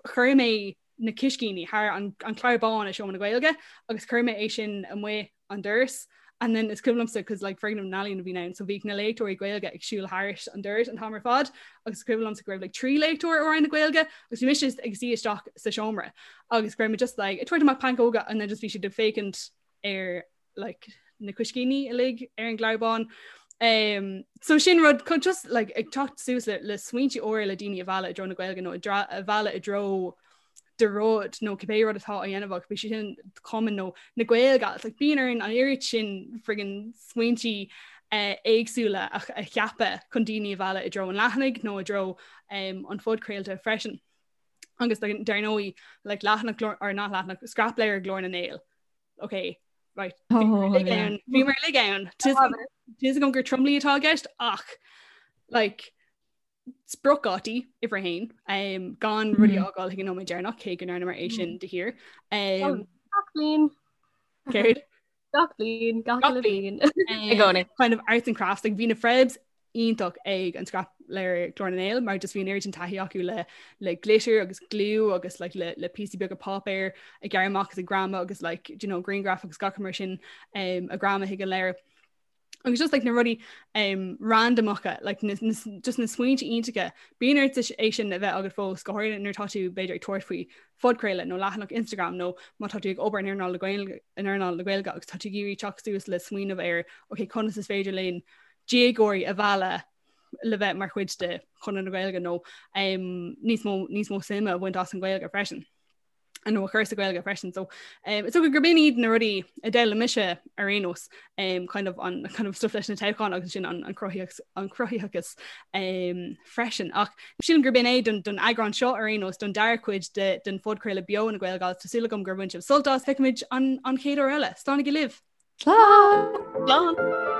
chuir mé na ciscíní thar an clár bán i Seomra na Gaeilge agus chuir mé é sin amuigh an doras and then is cuimhin liomsa cos like foirgneamh na n-ealaíon a bhí ann so bhíodh na léachtóirí Gaeilge ag siúl thairis an doras an t-am ar fad agus is cuimhin liomsa go raibh like 3 léachtóir ó Roinn na Gaeilge agus bhí mise ag suí isteach sa seomra agus go raibh mé just like ag tabhairt amach pancóga and then just bhí siad ag féachaint ar like, na cuiscíní uilig ar an gclár bán. Um, so sin rud chun just like, ag teacht suas le, le smaointe úra le daoine a mhealladh i dtreo na Gaeilge nó a mhealladh i dtreo do rud nó cibé rud atá á dhéanamh agat, bíodh sé sin cumann nó na Gaeilge like, bíonn orainn an oiread sin friggin smaointe uh, éagsúla a, a cheapadh chun daoine a mhealladh i dtreo an leathanaigh nó i dtreo um, an phodchraolta freisin. Agus dar ndóigh like, leathanach or not leathanach scrapleabhar Ghlór na nGael. ok right bhí mar lig ann Tá agam gur tromluí atá i gceist ach like spriocdhátaí uimhir a haon um, gan rudaí a fhágáil chuig an nóiméad deireanach cé go ndearnamar é sin de shíor. Um, Gach bliain. Céard? Gach bliain, gach uile bhliain. I gcónaí. Kind of arts and crafts like bhí na Frebs iontach ag an scrapleabhar Glór na nGael mar just bhí an oiread sin taithí acu le le glitter agus glue agus like, le, le píosaí beaga páipéir ag gearradh amach agus ag greamadh agus like, you know, grianghraif agus gach mar sin um, a ghreamadh chuig an leabhar. Agus just like na rudaí um, randamacha like, na, na, just na smaointe iontacha bíonn ort é sin a bheith agat fós go háirithe nuair atá tú b'fhéidir ag tabhairt faoi phodchraoladh nó leathanach Instagram nó má tá tú ag obair in earnáil na Gaeilge in earnáil na Gaeilge agus tá tú ag iarraidh teacht suas le smaoineamh ar ok conas is féidir linn déagóirí a mhealladh le bheith mar chuid de Chonradh na Gaeilge nó um, níos mó níos mó suime a bhaint as an Ghaeilge freisin. nó a chur sa Ghaeilge freisin. So um, is dócha gurb in iad na rudaí a d'fhoghlaim mise ar aon nós um, kind of an kind of stuff leis na toghcháin agus sin an, an cruthaitheachas an cruthaitheachas um, freisin. Ach sílim gurb in é don, don eagrán seo ar aon nós don dara cuid de, den phodchraoladh beo na Gaelgals Tá súil agam gur bhain sibh sult as feicimid an, an chéad uair eile. Slánaigí libh! Slán! Slán!